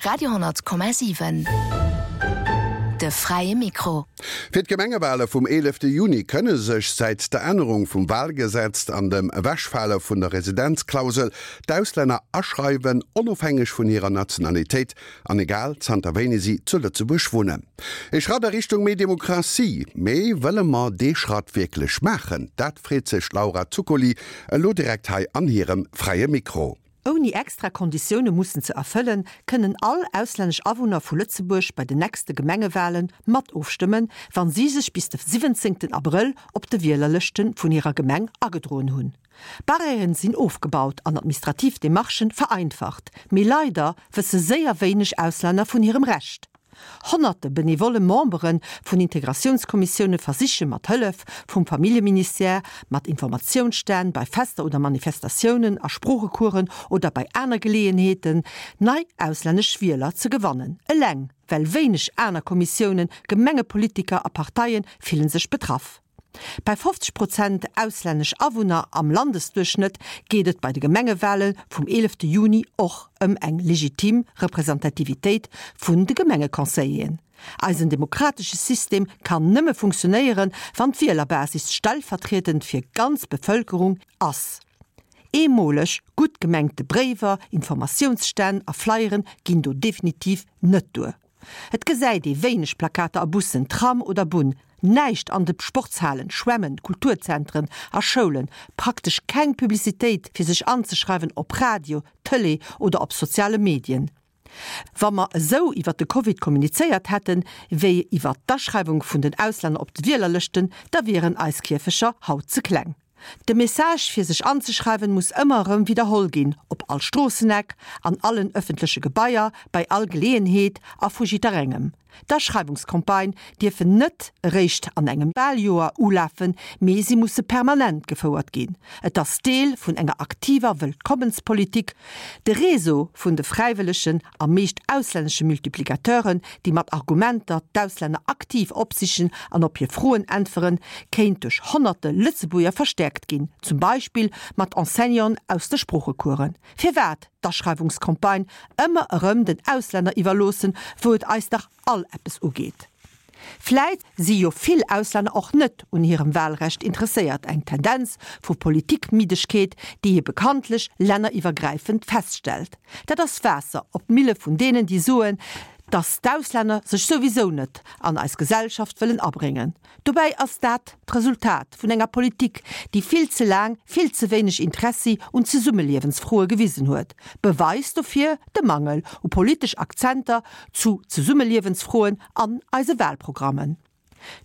Radio,7 De fräie Mikro. Fir d'Gemengewahle vum 11 Juni kënne sech säit der Ännerung vum Wahlgesetz an dem Ewechfale vun der Residenzklausel d'Auslänner aschreiwen, onofhängeg vun hirer Nationalitéit an egal zanter wéini si zu Lëtzebuerg wunnen. Ee Schratt a Richtung méi Demokratie. Mee wëlle mer dee Schratt wierklech maachen? Dat freet sech d'Laura Zuccoli elo direkt hei an hirem Fräie Mikro. Ouni extra Konditioune mussen ze erfëllen, kënnen all auslännesch Awunner vu Lëtzebuerg bei den nächste Gemengewale mat ofstëmmen, wann si sech bis de 17 Abrëll op de Wielerlëschte vun hirer Gemeng agedroen hunn. Barrièren sinn ofgebaut an administrativ Demarchen vereinfacht, mee leider wësse séier wéineg Auslänner vun hirem Recht. Honnerte benevolle Membere vun Integratiounskommissioune versiche mat Hëllef vum Familljeministère, mat Informatiounsstänn bei Fester oder Manifestatiounen, a Sproochecoursen oder bei aner Geleeënheeten, nei auslännesch Wieler ze gewannen. Eleng well wéineg aner Kommissiounen, Gemengepolitiker a Parteie fillen sech betraff. Bei 50 Prozent auslännesch Awunner am Landesduerchschnëtt geet et bei de Gemengewale vum 11 Juni och ëm eng legitim Representativitéit vun de Gemengeconseilleren. Eisen demokratesche System kann nëmme funktionéieren, wann d'Wielerbasis stellvertriedend fir ganz Bevëlkerung ass. Eemoleg gutt gemengte Bréiwer, Informatiounsstänn a Flyeren ginn do definitiv net duer. Et gesäit ee wéineg Plakater a Bussen, Tram oder Bunn, näischt an de Sportshalen, Schwämmen, Kulturzentren a Schoulen, praktesch keng Publicitéit fir sech anzeschreiwen op Radio, Tëlee oder op soziale Medien. Wa mer esou iwwer de Covid kommunizéiert hätten, wéi iwwer d'Aschreiwung vun den Auslänner op de Wielerlëschten, da wieren eis Kierfecher haut ze kleng. De Message fir sech anzeschreiwen muss ëmmer erëm widderholl ginn, op all Stroosseneck, an allen ëffentleche Gebaier, bei all Geleeënheet a vu jidderengem. D'Aschreiwungscampagne dierfen net eréischt an engem Waljoer ulafen, mee si musse permanent gefouert ginn. Et ass Deel vun enger aktiver Wëllkommenspolitik. De Réseau vun de fräiwëllegen a meescht auslännesche Multiplicateuren, déi mat Argumenter d'Auslänner aktiv opsichen an op hir Froen äntweren, kéint duerch honnerte Lëtzebuerger verstäerkt ginn, zum Beispill mat Enseignanten aus de Sproochecoursen. Firwat d'Aschreiwungscampagne ëmmer erëm den Auslänner iwwerloossen, wou et eis dach all eppes ugeet? Vläit si jo vill Auslänner och net un hirem Wahlrecht interesséiert, eng Tendenz vu Politikmiddegkeet, déi ee bekanntlech länneriwwergräifend feststellt. Dat ass Waasser op d'Mille vun deenen, déi soen, datt d'Auslänner sech souwisou net an eis Gesellschaft wëllen abréngen. Dobäi ass dat d'Resultat vun enger Politik, déi vill ze laang vill ze wéineg Interessi un Zesummeliewensfroe gewisen huet. Beweis dofir de Mangel u politesch Akzenter zu Zesummeliewensfroen an eise Wahlprogrammen.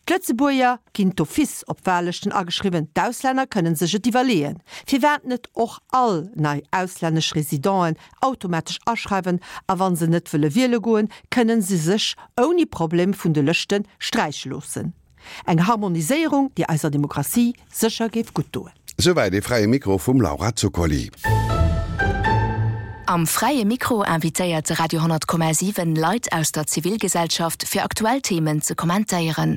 D'Lëtzebuerger ginn d'office op Wahllëschten ageschriwwen, d'Auslänner kënnen sech et iwwerleeën. Firwat net och all nei auslännesch Residenten automatesch aschreiwen a wa se net wëlle wiele goen, kënnen se sech ouni Problem vun de Lëschte sträiche loossen. Eng Harmoniséierung, déi eiser Demokratie sécher géif gutt doen. Souwäit ee Fräie Mikro vum Laura Zuccoli. Am Fräie Mikro invitéiert de Radio 10,7 Leit aus der Zivilgesellschaft fir aktuell Themen ze kommentéieren.